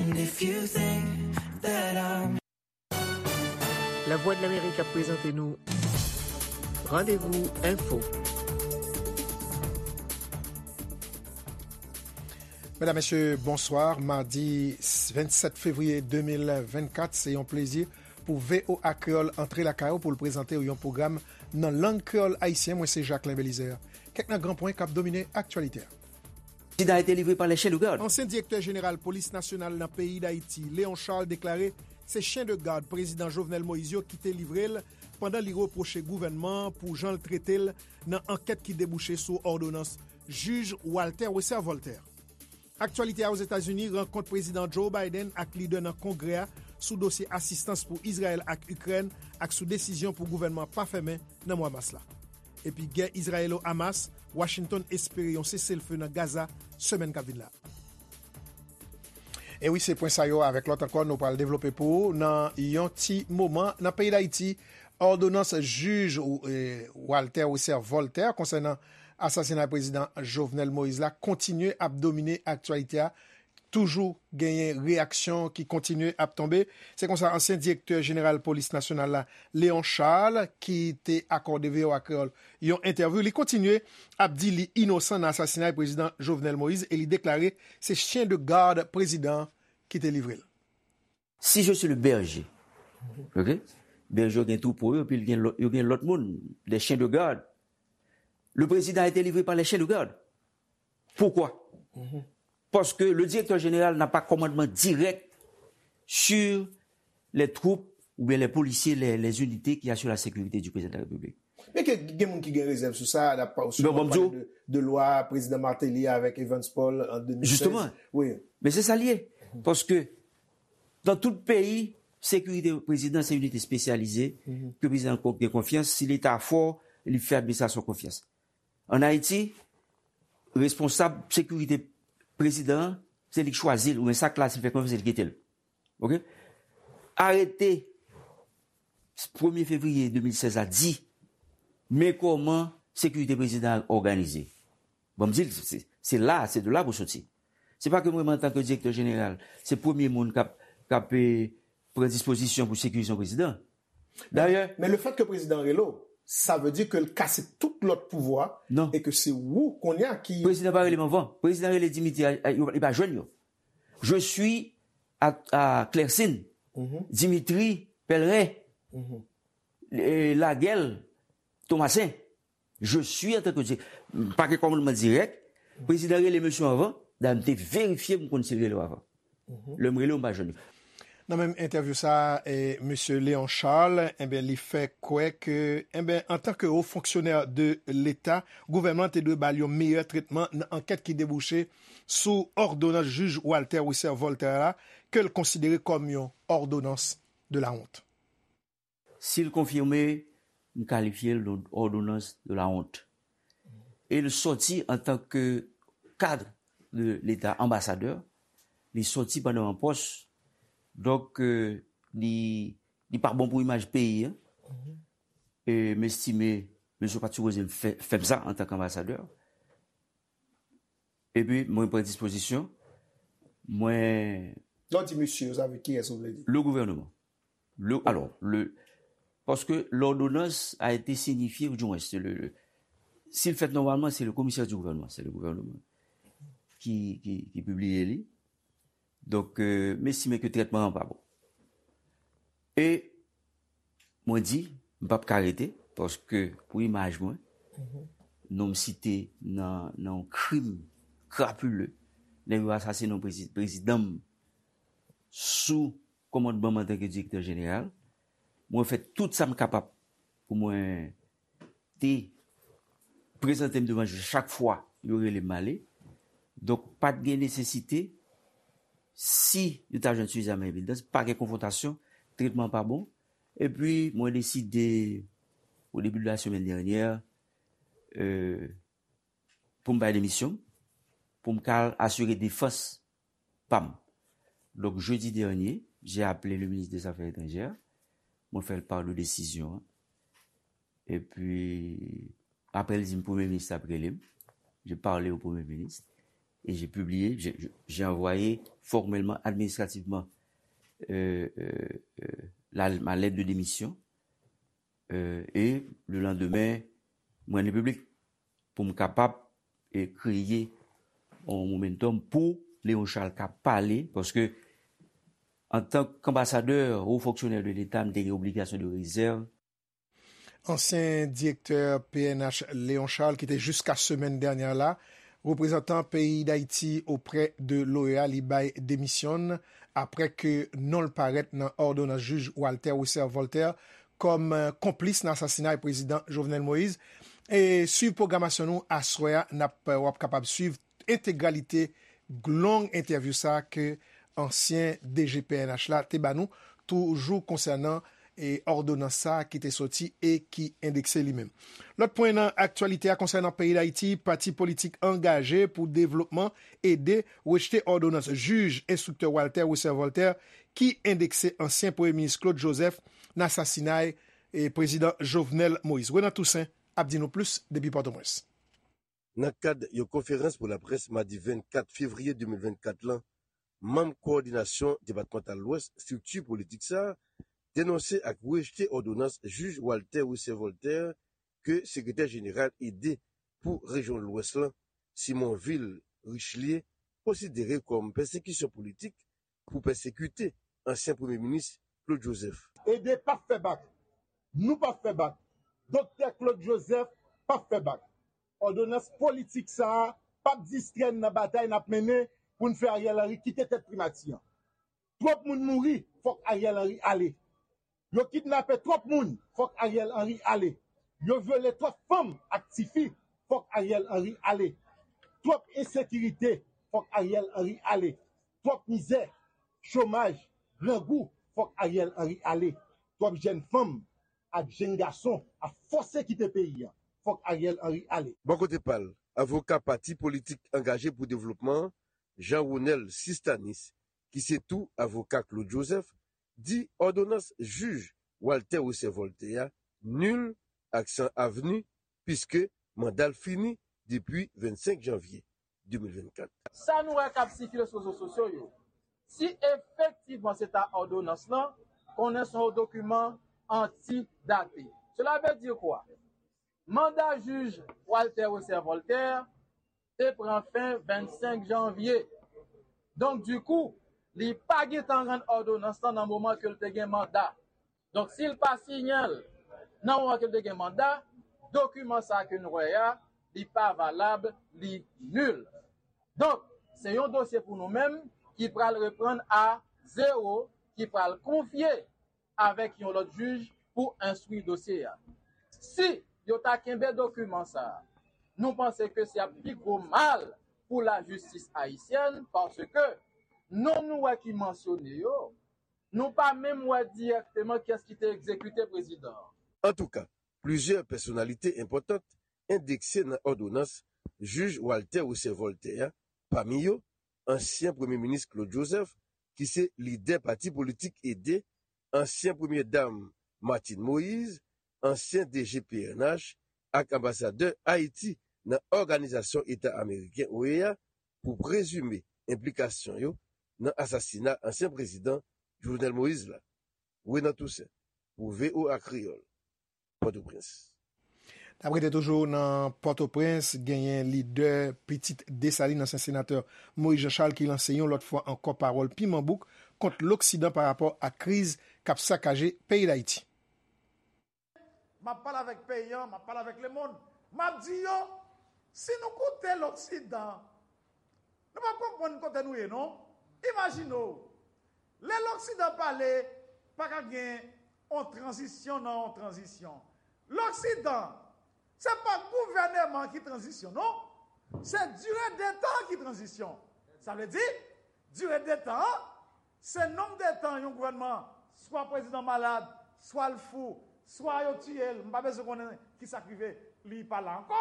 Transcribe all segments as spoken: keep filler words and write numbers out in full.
And if you think that I'm Lavwadlamerik ap prezante nou Randevou Enfo. Medam, mesye, bonswa. Madi vennsèt fevriye de mil vennkat, se yon plezi pou V O A Kreyòl antre lakay ou pou l prezante w yon pwogram nan lang kreyòl ayisyen. Mwen se Jacquelin Belizaire. Kèk nan gran pwen k ap domine aktyalite a. Président a été livré par les chiens de garde. Ansyen direktè jeneral polis nasyonal nan peyi Dayiti, Léon Charles, deklare se chen de gad prezidan Jovenel Moïse yo ki te livre l pandan li repwoche gouvènman an pou jan l trete l nan ankèt ki debouche sou òdonans jij Walter Wesser Voltaire. Aktyalite a Ozetazini, rankont prezidan Joe Biden ak lidè nan Kongrè a sou dosye asistans pou Izrayèl ak Ikrèn ak sou desizyon pou gouvènman an pa fèmen nan mwa mas la. Epi gè Izrayelo-Hamas, Washington espere yon seselfe nan Gaza semèn k ap vin la. E wi, se pwen sa yo avèk lòt ankò nou pral devlope pou ou nan yon ti moman. Nan peyi Dayiti, òdonans jij, eh, Walter Wesser Voltaire konsènan asasinay prezidan Jovenel Moïse la kontinye ap domine aktyalite a. Toujou genyen reyaksyon ki kontinye ap tonbe. Se konsa ansyen direktè jeneral polis nasyonal la, Léon Charles, ki te akòde V O A Kreyòl yon entèvyou, li kontinye ap di li inosan nan asasinay prezidan Jovenel Moïse e li deklare se chen de gad prezidan an ki te livre l. Si je suis le berger, ok? Bèje yo gen twoupo yo, epi yo gen lòt, yo gen lòt moun, des chiens de garde. Le président a été livré par les chiens de garde. Pourquoi? Parce que le directeur général n'a pas commandement direct sur les troupes ou bien les policiers, les, les unités qui assurent la sécurité du président de la République. Men ke gen moun ki gen rezèv sou sa, n ap pa- sou Bon, bon, pale de, de lwa prezidan Martelly avèk Evans Paul an de mil sèz. Justement. Wi. Men se sa l ye. Paske nan tout peyi, sekirite prezidan se inite espesyalize ke prezidan gen konfyans. Si leta fò, li fè administrasyon konfyans. An Ayiti, responsab sekirite prezidan an, se li k chwazi l, oubyen sa k la, si l fè konfyans, se li k kite l. Ok? Arete premye fevriye de mil sèz la di men kòman sekirite prezidan an òganize. Bon, m di l, se, se la, se de la pou soti. Se pa ke mwen menm antanke direktè jeneral, se premye moun k ap, k ap eh, pran dispozisyon pou sekirize yon prezidan. Dayè, Men le fèt ke prezidan rele w, sa vle di ke l kase tout lòt pouvwa Non. E ke se ou kounye a ki prezidan pa rele m anvan. Prezidan rele Dimitri, a- a- yo- li pa jwenn yo. Je suis à, à Clercine, Dimitri Pellerin, eh, Laguel, Thomassin. Je suis en tant que di- pa gen kòmandman dirèk. Prezidan rele mesye anvan, dayè m te verifye m konn si l rele w avan. Lè m rele w, m pa jwenn yo. Nan menm entèvyou sa a, eh, mesye Léon Charles, enben, li fè kwè ke, enben, antanke wo fonksyonè de Leta, gouvènman an te dwe ba l yon meyè tretman nan ankèt ki debouche sou òdonans jij Walter Wesser Voltaire la, ke l konsidere kòm yon òdonans de la honte. Si l konfime, m kalifye l de òdonans de la honte. E l sòti antanke kad de Leta, anbasadè, li sòti pandan yon pòs. Donk, eh, li, li pa bon pou imaj peyi an. E m estime mesye pa t sipoze fè, fè m sa antanke anbasadè. Epi mwen pran dispozisyon. Mwen Lè w di mesye, sa vle kiyès ou vle di? Le gouvernement. Le, alors, le, parce que l'ordonnance a été signifiée, ou du moins, c'est le, le- si l fèt nòmalman, se le komisè di gouvènman, se le gouvènman ki, ki, ki pibliye li. Donk, euh, m estime ke trètman an pa bon. E mwen di, m p ap ka rete, paske pou imaj mwen, non m site nan, nan yon krim krapile, nèg yo asasinen yon prezi- prezidan m sou kòmandman m antanke direktè jeneral. Mwen fè tout sa m kapab pou mwen te prezante m devan jij chak fwa yo rele m ale. Donk, pa t gen nesesite, si yo ta jwenn sifizaman evidans, pa gen konfwontasyon, tretman pa bon. Epi, mwen deside, o debi de la semèn dènyè, euh, pou m bay demisyon, pou m ka al asire defans pa m. Donk, jedi dènye, j'ai appelé le ministre des Affaires étrangères, mwen fè l pa de desizyon an. Epi, apre, l di m premye minis ap rele m. J'ai parlé au premier ministre. et j'ai publié, j'ai, j'ai envoyé formellement, administrativement, euh, euh, euh, la, ma lettre de démission. Euh, et le lendemain, mwen li piblik pou m kapab e kreye yon momentum pou Léon Charles ka pale, paske antank anbasadè, wo fonksyonè de Leta, m te gen obligasyon de rezèv. Ansyen direktè P N H Léon Charles, ki te jiska semèn dènyè la reprezantan peyi Dayiti oprè de l'OEA, li bay demisyon n apre ke non l parèt nan òdonans jij Walter Wesser Voltaire kòm, eh, konplis nan asasinay prezidan Jovenel Moïse. E swiv pwogramasyon nou aswè a, n ap, w ap kapab swiv entegralite long entèvyou sa ke ansyen D G P N H la te ba nou, toujou konsènan e òdonans sa a ki te soti e ki endekse li menm. Lòt pwen nan aktyalite a konsènan peyi Dayiti, pati politik Angaje pou Devlopman, ede, rejte òdonans jij enstriktè Walter Wesser Voltaire ki endekse ansyen premye minis Claude Joseph nan asasinay e prezidan Jovenel Moïse. Renan Toussaint ap di nou plis depi Pòtoprens. Nan kad yon konferans pou laprès madi vennkat fevriye de mil vennkat lan, manm kowòdinasyon depatmantal Lwès, estrikti politik sa a, denonse ak rejte òdonans jij Walter Wesser Voltaire ke sekretè jeneral ede pou rejyon Lwès lan, Simonvil Richelieu, konsidere kòm pèsekisyon politik pou pèsekite ansyen premye minis Claude Joseph. Ede p ap fè bak. Nou p ap fè bak. Doktè Claude Joseph p ap fè bak. Òdonans politik sa a p ap distrè n nan batay n ap mennen pou n fè Ariel Henry kite tèt primati an. Twòp moun mouri, fòk Ariel Henry ale. Yo kidnape twòp moun, fòk Ariel Henry ale. Yo vyole twòp fanm ak tifi, fòk Ariel Henry ale. Twòp ensekirite, fòk Ariel Henry ale. Twòp mizè, chomaj, grangou, fòk Ariel Henry ale. Twòp jèn fanm ak jèn gason ap fòse kite peyi a, fòk Ariel Henry ale. Bò kote pa l, avoka pati politik Angaje pou Devlopman an, Jean Ronel Sistanis, ki se tou avoka Claude Joseph, di òdonans jij Walter Wesser Voltaire a nil ak san avni, piske manda l fini depi vennsenk janvye de mil vennkat. Sa nou wè k ap sikile sou rezo sosyo yo, si efektivman se ta òdonans lan, konnen se yon dokiman antidate. Cela veut dire quoi? Manda jij Walter Wesser Voltaire te pran fen vennsenk janvye. Donk, dikou, li pa gentan rann òdonans lan nan moman ke l te gen manda. Donk, si l pa siyen l nan moman ke l te gen manda, dokiman sa ke n wè a, li pa valab, li nil. Donk, se yon dosye pou nou menm ki pral reprann a zewo, ki pral konfye avèk yon lòt jij pou enstwi dosye a. Si yo ta kenbe dokiman sa a, nou panse ke se ap pi gwo mal pou lajistis ayisyèn, paske non nou wè ki mansyone yo, nou pa menm wè dirèkteman kiyès ki te egzekite prezidan an. Antouka, plizyè pèsonalite enpòtan endekse nan òdonans jij Walter Wesser Voltaire a, pami yo, ansyen premye minis Claude Joseph, ki se lidè pati politik ede, ansyen premye dam Martine Moïse, ansyen D G P N H ak anbasadè Ayiti nan Òganizasyon Eta Ameriken, OEA, pou prezime enplikasyon yo nan asasina ansyen prezidan Jovenel Moïse la. Renan Toussaint, pou V O A Kreyòl, Pòtoprens. N ap rete toujou nan Pòtoprens, genyen lidè Pitit Desalin, ansyen senatè Moïse Jean Charles, ki lanse yon lòt fwa ankò pawòl piman bouk kont Loksidan pa rapò ak kriz k ap sakaje peyi Dayiti. M ap pale avèk peyi an, m ap pale avèk lemonn. M ap di yo, si nou koute Loksidan, nou p ap konprann kote nou ye, non. Imajine w, lè Loksidan pale, pa ka gen yon tranzisyon nan yon tranzisyon. Loksidan, se pa gouvèneman ki tranzisyon, non. Se dire de tan ki tranzisyon. Sa vle di, dire de tan an, se nonb de tan yon gouvènman, swa prezidan malad, swa l fou, swa yo tiye l, m pa bezwen konnen ki sa k rive, li pa la ankò.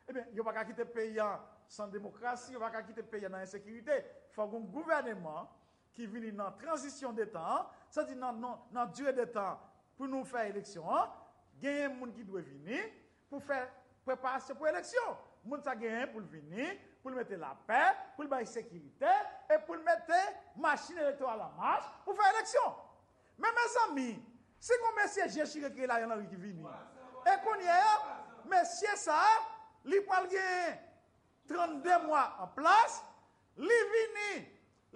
Ebyen, yo pa ka kite peyi an san demokrasi, yo pa ka kite peyi an nan ensekirite. Fòk yon gouvèneman ki vini nan tranzisyon de tan an, sa di nan, nan, nan dire de tan pou nou fè eleksyon an, genyen moun ki dwe vini pou fè preparasyon pou eleksyon. Moun sa genyen pou l vini pou l mete lapè, pou l bay sekirite, e pou l mete machin elektoral an mach pou fè eleksyon. Men, mezanmi, si gon mesye je chire ki rele Ariel Henry ki vini, e kounye a, mesye sa a, li pral gen trannde mwa an plas, li vini,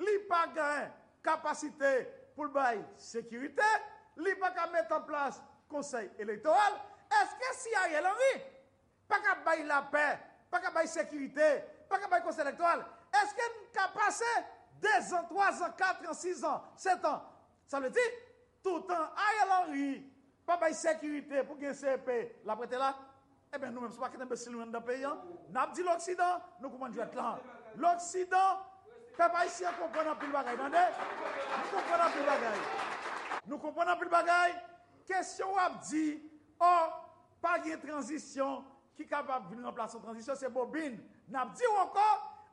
li pa gen kapasite pou l bay sekirite, li pa ka met an plas konsèy elektoral. Èske si Ariel Henry pa ka bay lapè, pa ka bay sekirite, pa ka bay konsèy elektoral, èske n ka pase dezan, twazan, katran, sizan, setan? Sa vle di, toutan Ariel Henry pa bay sekirite pou gen C E P l ap rete la, ebyen, nou menm, se pa kite enbesil nou anndan peyi a, n ap di Loksidan, nou konprann jwèt lan. Loksidan, pèp ayisyen konprann anpil bagay, tande? Nou konprann anpil bagay. Nou konprann anpil bagay. Kesyon w ap di, ò, pa gen tranzisyon ki kapab vin ranplase yon tranzisyon, se bobin. N ap di w ankò,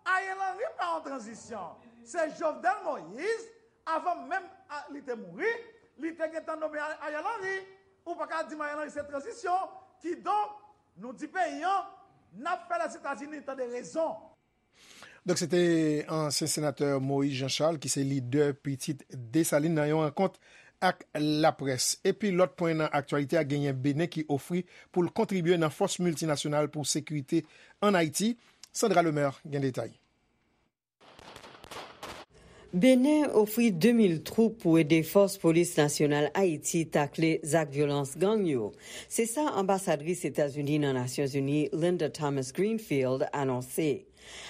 Ariel Henry pa yon tranzisyon. Se Jovenel Moïse, avan menm a, li te mouri, li te gentan nome A-, Ariel Henry. Ou pa ka di m Ariel Henry se tranzisyon. Kidonk, nou di peyi an, n ap fè Lèzetazini tande rezon. Donk, se te ansyen senatè Moïse Jean Charles, ki se lidè pitit Desalin, nan yon rankont ak laprès. Epi lòt pwen nan aktyalite a, genyen Benen ki ofri pou l kontribye nan fòs miltinasyonal pou sekirite ann Ayiti. Sandra Lemaire gen detay. Benen ofri de mil twoup pou ede fòs polis nasyonal Ayiti takle zak vyolans gang yo. Se sa anbasadris Etazini nan Nasyonzini, Linda Thomas Greenfield, anonse.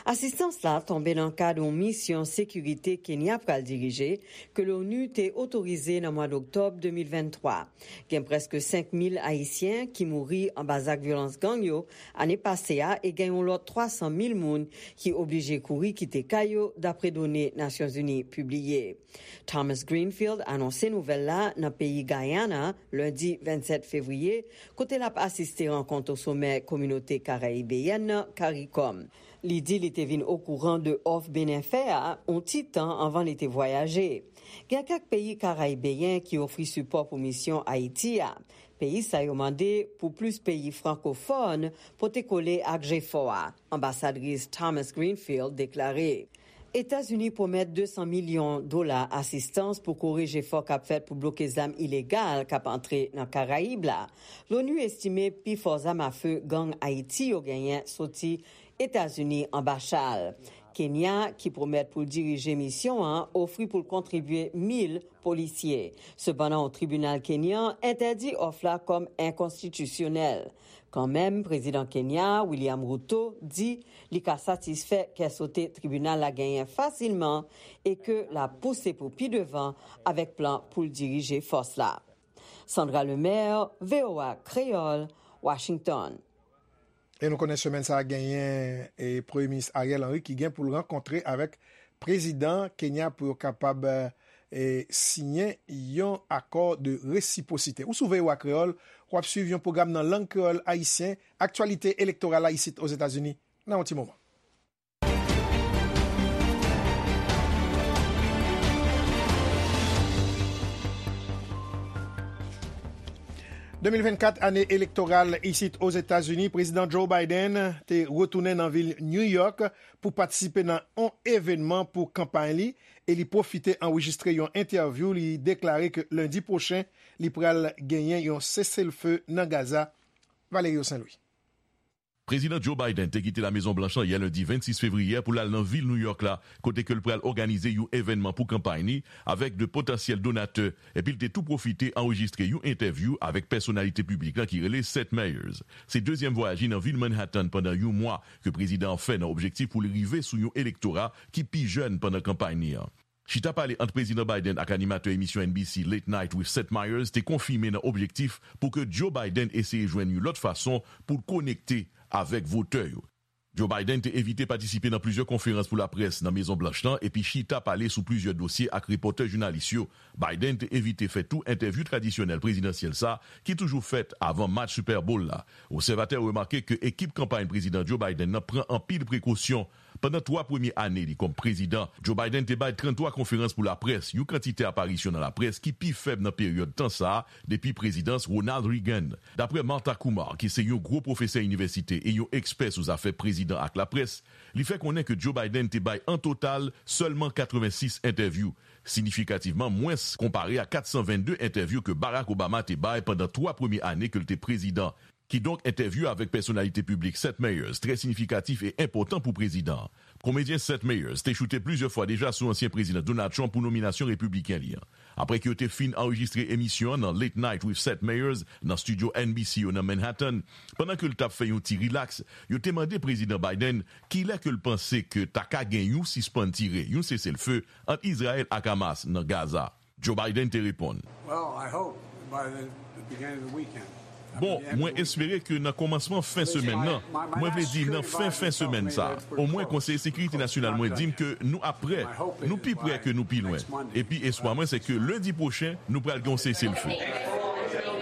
Asistans la tonbe nan kad yon misyon sekirite Kenya pral dirije, ke l'ONU te otorize nan mwa d'oktòb de mil venntwa. Gen prèske senk mil Ayisyen ki mouri anba zak vyolans gang yo ane pase a e gen yon lòt twa san mil moun ki oblije kouri kite kay yo, dapre done Nasyonzini pibliye. Thomas Greenfield anonse nouvèl la nan peyi Guyana, lendi vennsèt fevriye, kote l ap asiste rankont osomè kominote karayibeyèn nan, karikòm. Li di li te vin okouran de òf Benen fè a yon ti tan anvan li te vwayaje. Gen kèk peyi karayibeyen ki ofri sipò pou misyon Ayiti a. Peyi sa yo mande pou plis peyi frankofòn pote kole ak jefò a. Anbasadris Thomas Greenfield deklare, Etazini pwomèt de san milyon dola asistans pou kore jefò k ap fèt pou bloke zam ilegal k ap antre nan Karayib la. L'ONU estime pifò zam afe gang Ayiti yo genyen soti Etazini anba chal. Kenya, ki pwomèt pou l dirije misyon an, ofri pou l kontribye mil polisye. Sepandan, yon tribinal kenyan entèdi òf la kòm enkonstitisyonèl. Kanmenm, prezidan Kenya, William Ruto, di li ka satisfè kè sote tribinal la genyen fasilman e ke l ap pouse pou pi devan avèk plan pou l dirije fòs la. Sandra Lemaire, V O A Kreyòl, Washington. E nou konnen semèn sa a genyen, e, Premye Minis Ariel Henry ki gen pou l rankontre avèk prezidan Kenya pou yo kapab, e, siyen yon akò de resipwosite. Ou sou V O A Kreyòl, w ap swiv yon pwogram nan lang kreyòl ayisyen, aktyalite elektoral la isit Ozetazini, nan yon ti moman. De mil vennkat, ane elektoral isit Ozetazini, Prezidan Joe Biden te retounen nan vil New York pou patisipe nan yon evènman pou kanpay li, e li pwofite anrejistre yon entèvyou. Li deklare ke lendi pwochen, li pral genyen yon seselfe nan Gaza. Valerio Saint Louis. Prezidan Joe Biden te kite La Mezon Blanch lan yè lendi vennsis fevriye pou l al nan vil New York la, kote ke l pral òganize yon evènman pou kanpay ni avèk de potansyèl donatè, epi l te tou pwofite anrejistre yon entèvyou avèk pèsonalite piblik lan ki rele Seth Meyers. Se dezyèm vwayaj li nan vil Manhattan pandan yon mwa ke prezidan an fè nan objektif pou l rive sou yon elektora ki pi jèn pandan kanpay ni an. Chita pale ant Prezidan Biden ak animatè emisyon N B C Late Night with Seth Meyers te konfime nan objektif pou ke Joe Biden eseye jwenn yon lòt fason pou l konekte avèk votè yo. Joe Biden te evite patisipe nan plizyè konferans pou laprès nan Mezon Blanch lan epi chita pale sou plizyè dosye ak repòtè jounalis yo. Biden te evite fè tou entèvyou tradisyonèl prezidansyèl sa ki toujou fèt avan match Super Bowl la. Obsèvatè yo remake ke ekip kanpay prezidan Joe Biden nan pran anpil prekosyon Pandan twa premye ane li kòm prezidan, Joe Biden te bay tranntwa konferans pou laprès, yon kantite aparisyon nan laprès ki pi fèb nan peryòd tan sa a depi prezidans Ronald Reagan. Dapre Martha Kumar, ki se yon gwo pwofesè inivèsite e yon ekspè sou zafè prezidan ak laprès, li fè konnen ke Joe Biden te bay an total sèlman katrevensis entèvyou, siyifikativman mwens konpare a katsanvennde entèvyou ke Barack Obama te bay pandan twa premye ane ke l te prezidan. Kidonk, entèvyou avèk pèsonalite piblik Seth Meyers trè siyifikatif e enpòtan pou prezidan an. Komedyen Seth Meyers te choute plizyè fwa deja sou ansyen prezidan Donald Trump pou nominasyon repibliken li an. Apre ke yo te fin anrejistre emisyon an nan Late Night with Seth Meyers nan estidyo N B C yo nan Manhattan, pandan ke l t ap fè yon ti rilaks, yo te mande Prezidan Biden kilè ke l panse ke ta ka gen yon sispann tire, yon seselfe ant Izrayèl ak Hamas nan Gaza. Joe Biden te reponn, Well, I hope by the, the beginning of the weekend. Bon, mwen espere ke nan kòmansman fen semèn nan, mwen vle di nan fen fen semèn sa, omwen Konsèy Sekirite Nasyonal mwen di m ke nou ap prè, nou pi prè ke nou pi lwen. Epi espwa mwen se ke lendi pwochen, nou pral gen yon seselfe.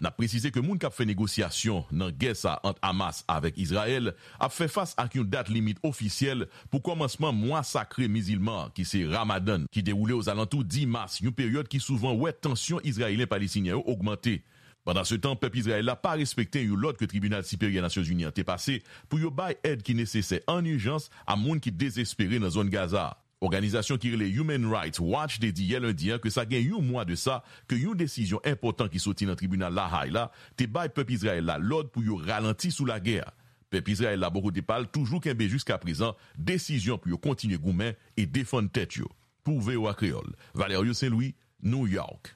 N ap presize ke moun k ap fè negosyasyon nan gè sa ant Hamas avèk Izrayèl ap fè fas ak yon dat limit ofisyèl pou kòmansman mwa sakre mizilman an, ki se Ramadan, ki dewoule ozalantou dis mas, yon peryòd ki souvan wè tansyon Izrayelyen-Palestinyen yo ogmante. Pandansetan, pèp Izrayèl la pa respekte yon lòd ke Tribinal Siperyè Nasyonzini an te pase pou yo bay èd ki nesesè an ijans a moun ki dezespere nan zòn Gaza a. Òganizasyon ki rele Human Rights Watch te di yè lendi an ke sa gen yon mwa de sa ke yon desizyon enpòtan ki soti nan tribinal La Hay la te bay pèp Izrayèl la lòd pou yo ralanti sou lagè a. Pèp Izrayèl la, bò kote pa l, toujou kenbe jiskaprezan desizyon pou yo kontinye goumen e defann tèt yo. Pou V O A Kreyòl, Valerio Saint Louis, New York.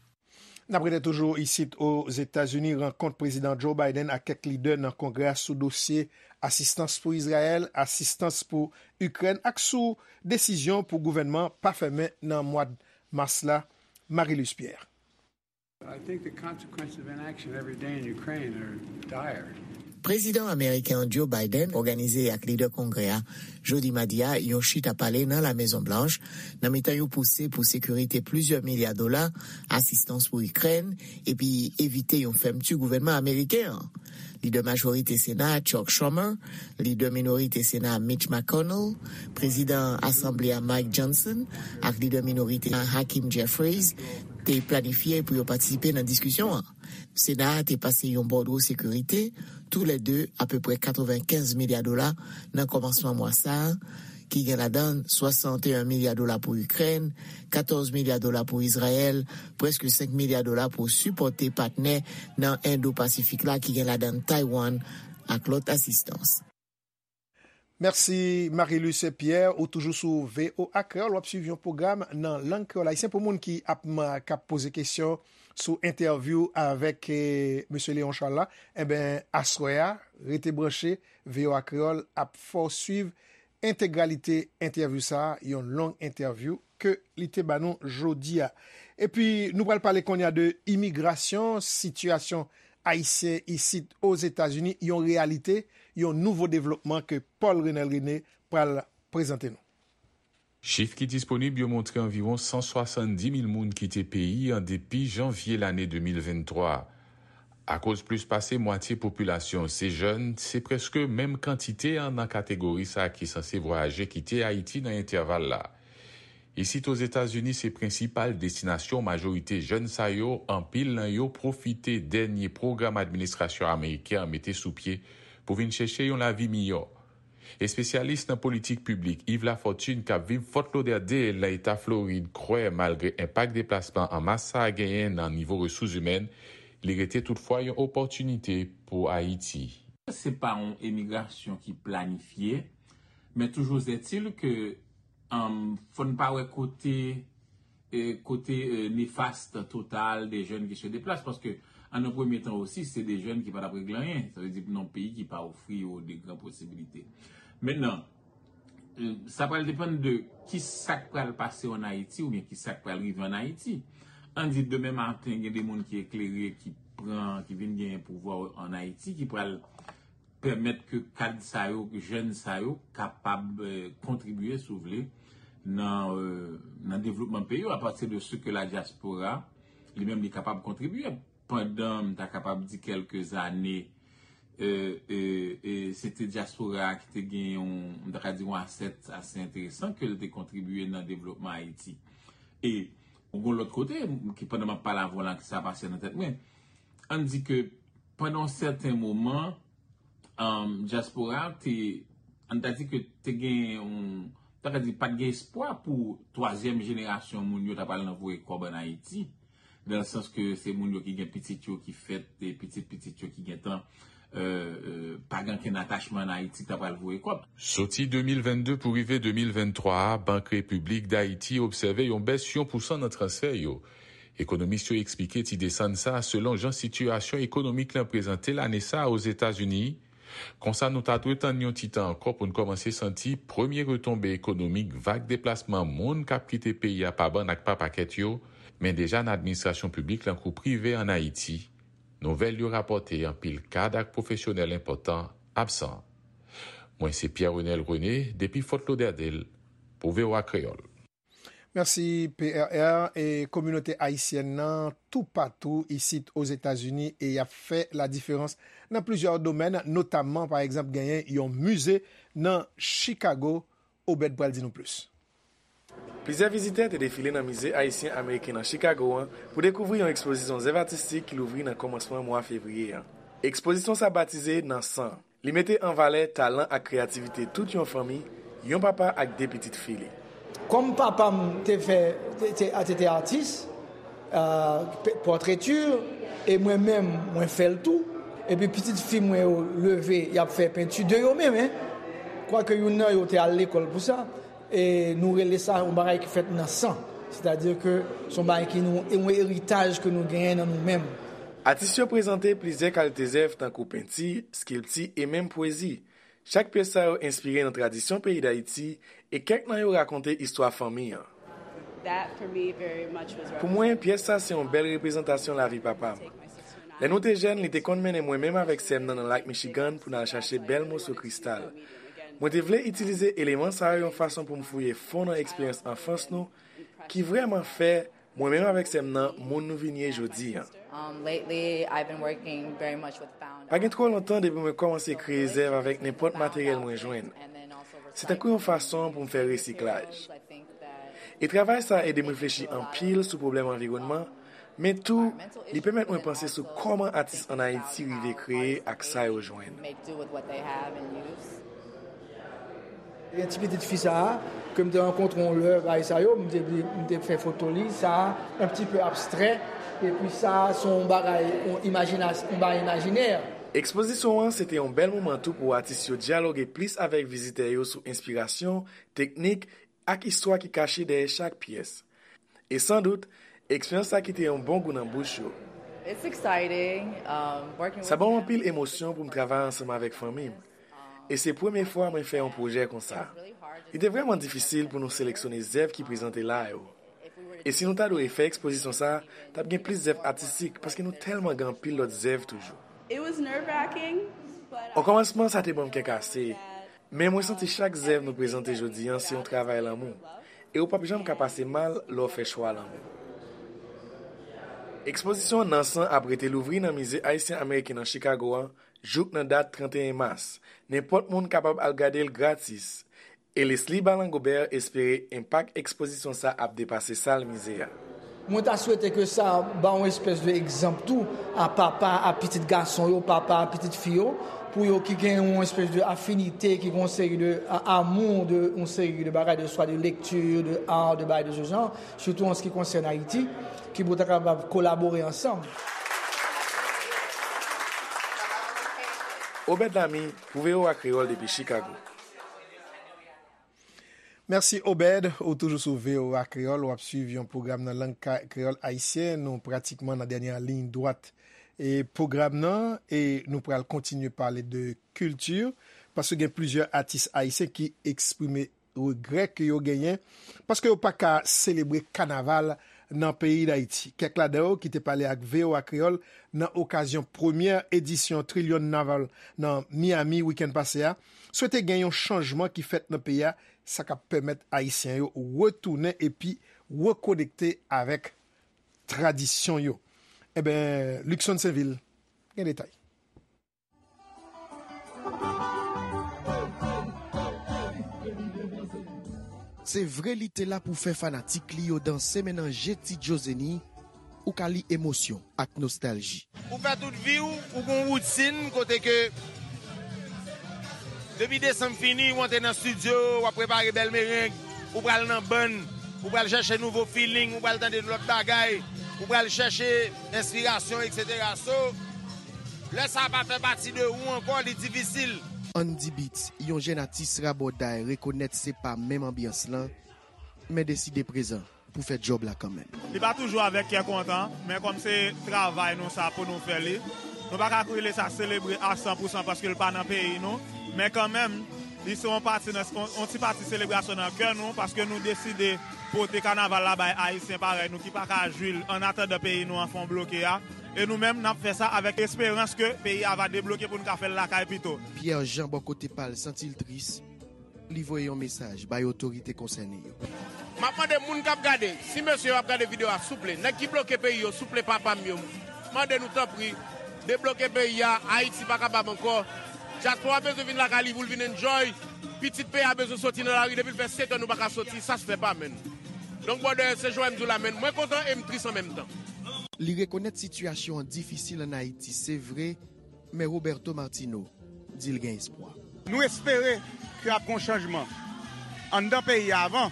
N ap rete toujou isit Ozetazini, rankont Prezidan Joe Biden ak kèk lidè nan Kongrè a sou dosye asistans pou Izrayèl, asistans pou Ikrèn ak sou desizyon pou gouvènman pa fèmen nan mwa mas la. Marie-Luce Pierre. I think the consequences of inaction every day in Ukraine are dire. Prezidan ameriken an Joe Biden òganize ak lidè Kongrè a jodi madi a yon chita pale nan La Mezon Blanch, nan mitan yon pouse pou sekirite plizyè milya dola, asistans pou Ikrèn, epi evite yon fèmti gouvènman ameriken an. Lidè majorite Sena a Chuck Schumer, lidè minorite Sena a Mitch McConnell, prezidan Asanble a Mike Johnson ak lidè minorite a Hakeem Jeffries te planifye pou yo patisipe nan diskisyon an. Sena a te pase yon bòdwo sekirite, toulède apeprè katrevenkenz milya dola, nan kòmansman mwa sa a, ki gen ladan swasanteyen milya dola pou Ikrèn, katòz milya dola pou Izrayèl, prèske senk milya dola pou sipòte patnè nan Endo-Pasifik la, ki gen ladan Taiwan, ak lòt asistans. Mèsi, Marie-Luce Pierre. Ou toujou sou V O A Kreyòl, w ap swiv yon pwogram nan lang kreyòl ayisyen. Pou moun ki ap, m, k ap poze kesyon sou entèvyou avèk, eh, mesye Léon Charles la, enben, aswè a, rete branche, V O A Kreyòl ap fè w swiv entegralite entèvyou sa a, yon long entèvyou ke li te ba nou jodi a. Epi, nou pral pale kounye a de imigrasyon, sitiyasyon ayisyen isit Ozetazini, yon reyalite, yon nouvo devlopman ke Paul Renel René pral prezante nou. Chif ki disponib yo montre anviwon san swasanndis mil moun kite peyi an depi janvye lane de mil venntwa. Akoz plis pase mwatye popilasyon se jèn, se prèske menm kantite an nan kategori sa a ki sanse vwayaje kite Ayiti nan entèval la. Isit Ozetazini se prensipal destinasyon majorite jèn sa yo, anpil nan yo pwofite dènye pwogram administrasyon ameriken an mete sou pye pou vin chèche yon lavi miyò. Espesyalis nan politik piblik Yves Lafortune k ap viv Fort Lauderdale nan eta Florid kwè malgre enpak deplasman an mas sa a genyen nan nivo resous imèn, li rete toutfwa yon opòtinite pou Ayiti. Se pa yon emigrasyon ki planifye, men toujours est-il que, um, fò n pa wè kote e, kote, e, nefast total de jèn ki se deplase, paske an nan premye tan osi, se de jèn ki pa t ap regle anyen. Sa vle di pou nan yon peyi ki pa ofri yo de gran posibilite. Mentnan, e, sa pral depann de ki sa k pral pase an Ayiti oubyen ki sa k pral rive an Ayiti. Ann di demen maten, gen de moun ki eklere, ki pran, ki vin genyen pouvwa an Ayiti, ki pral pèmèt ke kad sa yo, ke jèn sa yo kapab, eh, kontribye, si w vle, nan, eh, nan devlopman peyi yo, apati de ce que la diaspora, li menm, li kapab kontribye. Pandan, m ta kapab di, kèlke zane, e, e, e se te dyaspora a ki te gen yon, m ta ka di yon asèt ase enteresan ke l te kontribye nan devlopman Ayiti. E yon lòt kote, ki pandan m ap pale avè w la, ki sa pase nan tèt mwen, ann di ke pandan yon sèten moman, um, dyaspora te, ann ta di ke te gen yon, ta ka di, pa t gen espwa pou twazyèm jenerasyon moun yo ta pral nan voye kòb ann Ayiti, nan sans ke se moun yo ki gen pitit yo ki fèt, e pitit pitit yo ki gentan, euh, euh, pa gen ankenn atachman ann Ayiti ki ta pral voye kòb. Soti de mil vennde pou rive de mil venntwa a, Bank Repiblik Dayiti obsève yon bès yon pousan nan transfè yo. Ekonomis yo eksplike ti desann sa a selon jan sitiyasyon ekonomik lan prezante l ane sa a Ozetazini. Konsa, nou ta dwe tann yon ti tan ankò pou n kòmanse santi premye retonbe ekonomik vag deplasman moun k ap kite peyi a pa bann ak pa pakèt yo, men deja nan administrasyon piblik lan kou prive ann Ayiti. Nouvèl yo rapòte anpil kad ak pwofesyonèl enpòtan absan. Mwen se Pierre Renel René, depi Fort Lauderdale, pou V O A Kreyòl. Mèsi, P R R. E kominote ayisyèn nan toupatou isit Ozetazini e y ap fè ladiferans nan plizyè domèn, notamman, pa egzanp, genyen yon mize nan Chicago. Obed pral di nou plis. Plizyè vizitè te defile nan Mize Ayisyen Ameriken nan Chicago an pou dekouvri yon ekspozisyon zèv atistik ki louvri nan kòmansman mwa fevriye an. Ekspozisyon sa batize Nan San. Li mete an valè talan ak kreyativite tout yon fanmi, yon papa ak de pitit fi li. Kòm papa m te fè, te, te, te, te atis, euh, p-, pòtreti, e mwen menm, mwen fè l tou. Epi pitit fi mwen yo leve, y ap fè penti de yo menm, en. Kwake youn nan yo te al lekòl pou sa, e nou rele sa yon bagay ki fèt nan san. Sètadi ke se yon bagay ki nou, e yon eritaj ke nou genyen nan nou menm. Atis yo prezante plizyè kalite zèv tankou penti, eskilti e menm pwezi. Chak pyès sa yo enspire nan tradisyon peyi Dayiti e kèk nan yo rakonte istwa fanmi an. That for me very much was Pou mwen, pyès sa se yon bèl reprezantasyon lavi papa m. Lè nou te jèn, li te konn mennen mwen menm avèk sè m nan nan Lak Michigan pou n al chache bèl moso kristal. Mwen te vle itilize eleman sa yo yon fason pou m fouye fon nan eksperyans anfans nou ki vrèman fè mwen menm avèk sè m nan moun nou vin ye jodi an. Um, lately, I've been working very much with found Pa gen twò lontan depi mwen kòmanse kreye zèv avèk nenpòt materyèl mwen jwenn. Se tankou yon fason pou m fè resiklaj. E travay sa ede m reflechi anpil sou pwoblèm anviwònman, men tou, li pèmèt mwen panse sou kòman atis ann Ayiti rive kreye ak sa yo jwenn. Make do with what they have and use. Gen ti pitit fi sa a, ke m te rankontre yon lè, bagay sa yo, m te, m te fè foto li, sa a, un petit peu abstrait, epi sa a, se yon bagay, yon imajinas-, yon bagay imajinè. Ekspozisyon an se te yon bèl moman tou pou atis yo dyaloge plis avèk vizitè yo sou enspirasyon, teknik, ak istwa ki kache dèyè chak pyès. E sandout, eksperyans sa kite yon bon gou nan bouch yo. It's exciting, um, working Sa with ban m them. Anpil emosyon pou m travay ansanm avèk fanmi m. E se premye fwa mwen fè yon pwojè konsa. Li te vrèman difisil pou nou seleksyone zèv ki prezante la yo. E si nou ta dwe fè ekspozisyon sa, t ap gen plis zèv atistik paske nou tèlman gen anpil lòt zèv toujou. It was nerve-wracking, but O kòmansman, sa te ban m kè kase. Men mwen santi chak zèv nou prezante jodi an se yon travay lanmou. E ou p ap janm ka pase mal lè w fè chwa lanmou. Ekspozisyon Nan San ap rete louvri nan Mize Ayisyen Ameriken nan Chicago an jouk nan dat trannteyen mas. Nenpòt moun kapab al gade l gratis. E Leslie Balangobert espere enpak ekspozisyon sa ap depase sal mize a. Mwen ta swete ke sa ba yon espès de egzanp tou a papa, a pitit gason yo, papa, a pitit fi yo, pou yo ki gen yon espès de afinite, ki gen yon seri de a-, amour de yon seri de bagay, de swa de lekti, de art, de bagay de ce genre, surtout en ce qui concerne Haïti, ki pou ta kapab kolabore ansanm. Obed Lamy, pou V O A Kreyòl depi Chicago. Mèsi, Obed. Ou toujou sou V O A Kreyòl, w ap swiv yon pwogram nan lang ka-, kreyòl ayisyen. Nou pratikman nan dènyè liy dwat e pwogram nan, e nou pral kontinye pale de kilti, paske gen plizyè atis ayisyen ki eksprime regrè ke yo genyen, paske yo pa ka selebre kanaval nan peyi Dayiti. Kèk ladan yo ki te pale ak V O A Kreyòl nan okazyon premyè edisyon Trillion Naval nan Miami wikenn pase a, swete gen yon chanjman ki fèt nan peyi a, sa k ap pèmèt Ayisyen yo retounen epi rekonekte avèk tradisyon yo. Enben, Luckson Sainvil gen detay. Se vre li te la pou fè fanatik li yo danse, men nan je Ti Djo Zenny, ou ka li emosyon ak nostalji. Ou fè tout vi w, ou gon woutin kote ke depi desanm fini, ou antre nan estidyo, w ap prepare bèl mereng, ou pral nan bann, ou pral chèche nouvo feeling, ou pral tande lòt bagay, ou pral chèche enspirasyon, etsetera. So, lè sa pa fè pati de ou ankò, li difisil. Andy Beats, yon jèn atis rabòday, rekonèt se pa menm anbyans lan, men deside prezan pou fè djòb la kanmenm. Li pa toujou avèk kè kontan, men kòm se travay nou sa pou nou fè li, nou pa ka rele sa selebre a san pou san paske l pa nan peyi nou, men kanmenm, li se yon pati nan, yon, yon ti pati selebrasyon nan kè nou paske nou deside pote kanaval la bay Ayisyen parèy nou ki pa ka jwi l annatandan peyi nou an fè yon bloke a. E nou menm, n ap fè sa avèk esperans ke peyi a va debloke pou n ka fè l lakay pito. Pierre Jean bò kote pa l santi l tris, li voye yon mesaj bay otorite konsène yo. M ap mande moun k ap gade, si mesye yo ap gade videyo a, souple, nèg ki bloke peyi yo, souple papa m yo, m mande nou tanpri, debloke peyi a, Ayiti pa kapab ankò. Dyaspora bezwen vin lakay li pou l vin enjoy, pitit peyi a bezwen soti nan lari, depi l fè sèt an nou pa ka soti, sa se fè pa menn. Donk brother, se jan w wè m di w la menn, mwen kontan e m tris an menm tan. Li rekonèt sitiyasyon an difisil ann Ayiti, se vre, men Roberto Martino di l gen espwa. Nou espere ke ap gen yon chanjman anndan peyi a avan.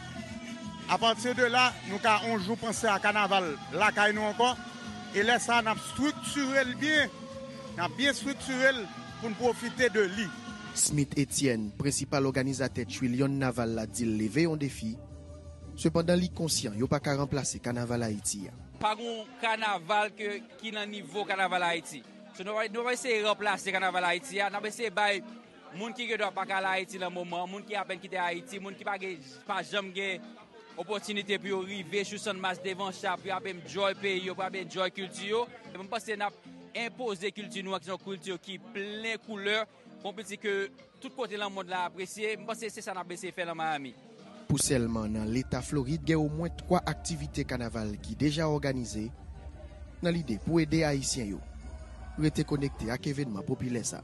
Apati de la, nou ka yon jou panse a kanaval lakay nou ankò. E lè sa a, n ap estriktire l byen. N ap byen estriktire l pou n pwofite de li. Smith Etienne, prensipal òganizatè Trillion Naval la, di l leve yon defi. Sepandan, li konsyan yo pa ka ranplase kanaval Ayiti a. Pa gen yon kanaval ke, ki nan nivo kanaval Ayiti. So, nou pa, nou pa eseye ranplase kanaval Ayiti a, n ap eseye bay moun ki gen dwa pa ka al Ayiti nan moman, moun ki apèn kite Ayiti, moun ki pa gen, pa janm gen opòtinite pou yo rive sou Channmas devan cha, pou y ap enjoy peyi yo, pou y ap enjoy kilti yo. E mwen panse n ap enpoze kilti nou an, ki se yon kilti ki plen koulè, yon kilti ke tout kote nan mond la apresye. Mwen panse se sa n ap eseye fè nan Miami. Pou sèlman nan Leta Florid, gen omwen twa aktivite kanaval ki deja òganize. Nan lide pou ede Ayisyen yo rete konekte ak evènman popilè sa.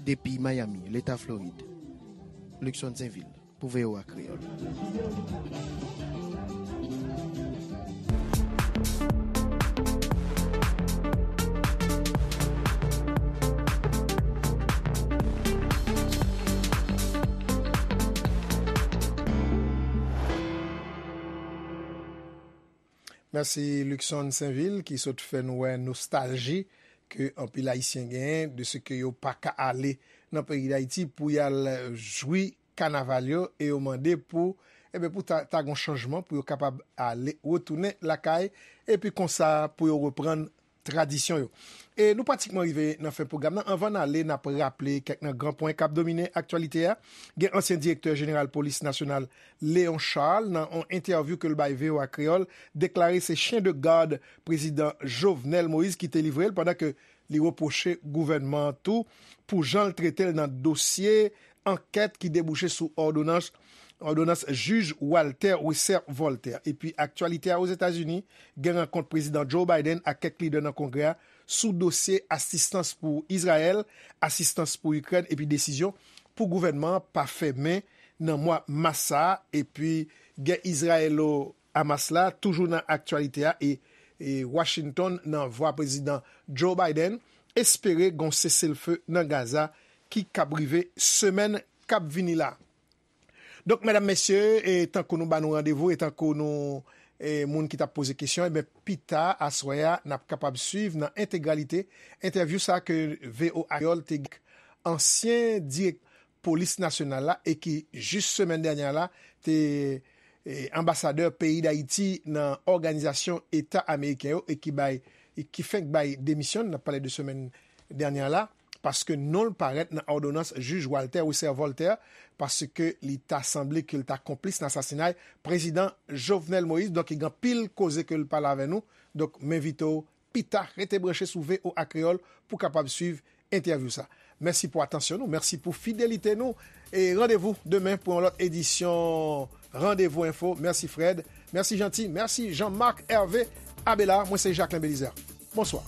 Depi Miami, Leta Florid, Luckson Sainvil pou V O A Kreyòl. Mèsi Luckson Sainvil ki sot fè nou wè nostalji ke anpil Ayisyen genyen de se ke yo pa ka ale nan peyi Dayiti pou y al jwi kanaval yo e yo mande pou, enben, pou ta, ta gen yon chanjman pou yo kapab ale, retounen lakay epi konsa pou yo reprann tradisyon yo. E nou pratikman rive nan fen pwogram nan. Anvan n ale, n ap raple kèk nan gran pwen k ap domine aktyalite a. Gen ansyen direktè jeneral polis nasyonal Léon Charles, nan yon entèvyou ke l bay V O A Kreyòl, deklare se chyen de gad prezidan Jovenel Moïse ki te livre l, pandan ke li repwoche gouvènman an tou pou jan l trete l nan dosye ankèt ki debouche sou òdonans, òdonans jij Walter Wesser Voltaire. Epi aktyalite a Ozetazini, gen rankont prezidan Joe Biden ak kèk lidè nan Kongrè a sou dosye asistans pou Izrayèl, asistans pou Ikrèn epi desizyon pou gouvènman an pa fèmen nan mwa mas sa a, epi gè Izrayelo Hamas la toujou nan aktyalite a e, e Washington nan vwa prezidan Joe Biden espere gon seselfe nan Gaza ki kab rive semèn k ap vini la. Donk, medam, mesye, e tankou nou ba nou randevou, e tankou nou, e moun ki t ap poze kesyon, ebyen, pita aswè a, n ap kapab swiv nan entegralite entèvyou sa ke V O A Kreyòl te gen ansyen dirèk polis nasyonal la e ki jis semèn dènyè la te e, anbasadè peyi Dayiti nan Òganizasyon Eta Ameriken yo e ki bay, e ki fenk bay demisyon, n ap pale de semèn dènyè la, paske non l parèt nan òdonans jij Walter Wesser Voltaire, paske li ta sanble ke l ta konplis nan asasinay prezidan Jovenel Moïse. Donk, gen anpil koze ke l pale avè nou. Donk, m envite w pita, rete branche sou V O A Kreyòl pou kapab swiv entèvyou sa. Mèsi pou atansyon nou, mèsi pou fidelite nou, e randevou demen pou yon lòt edisyon Randevou Enfo. Mèsi Fred, mèsi Jeanty, mèsi Jean Marc Hervé Abelard. Mwen se Jacquelin Belizaire. Bonswa.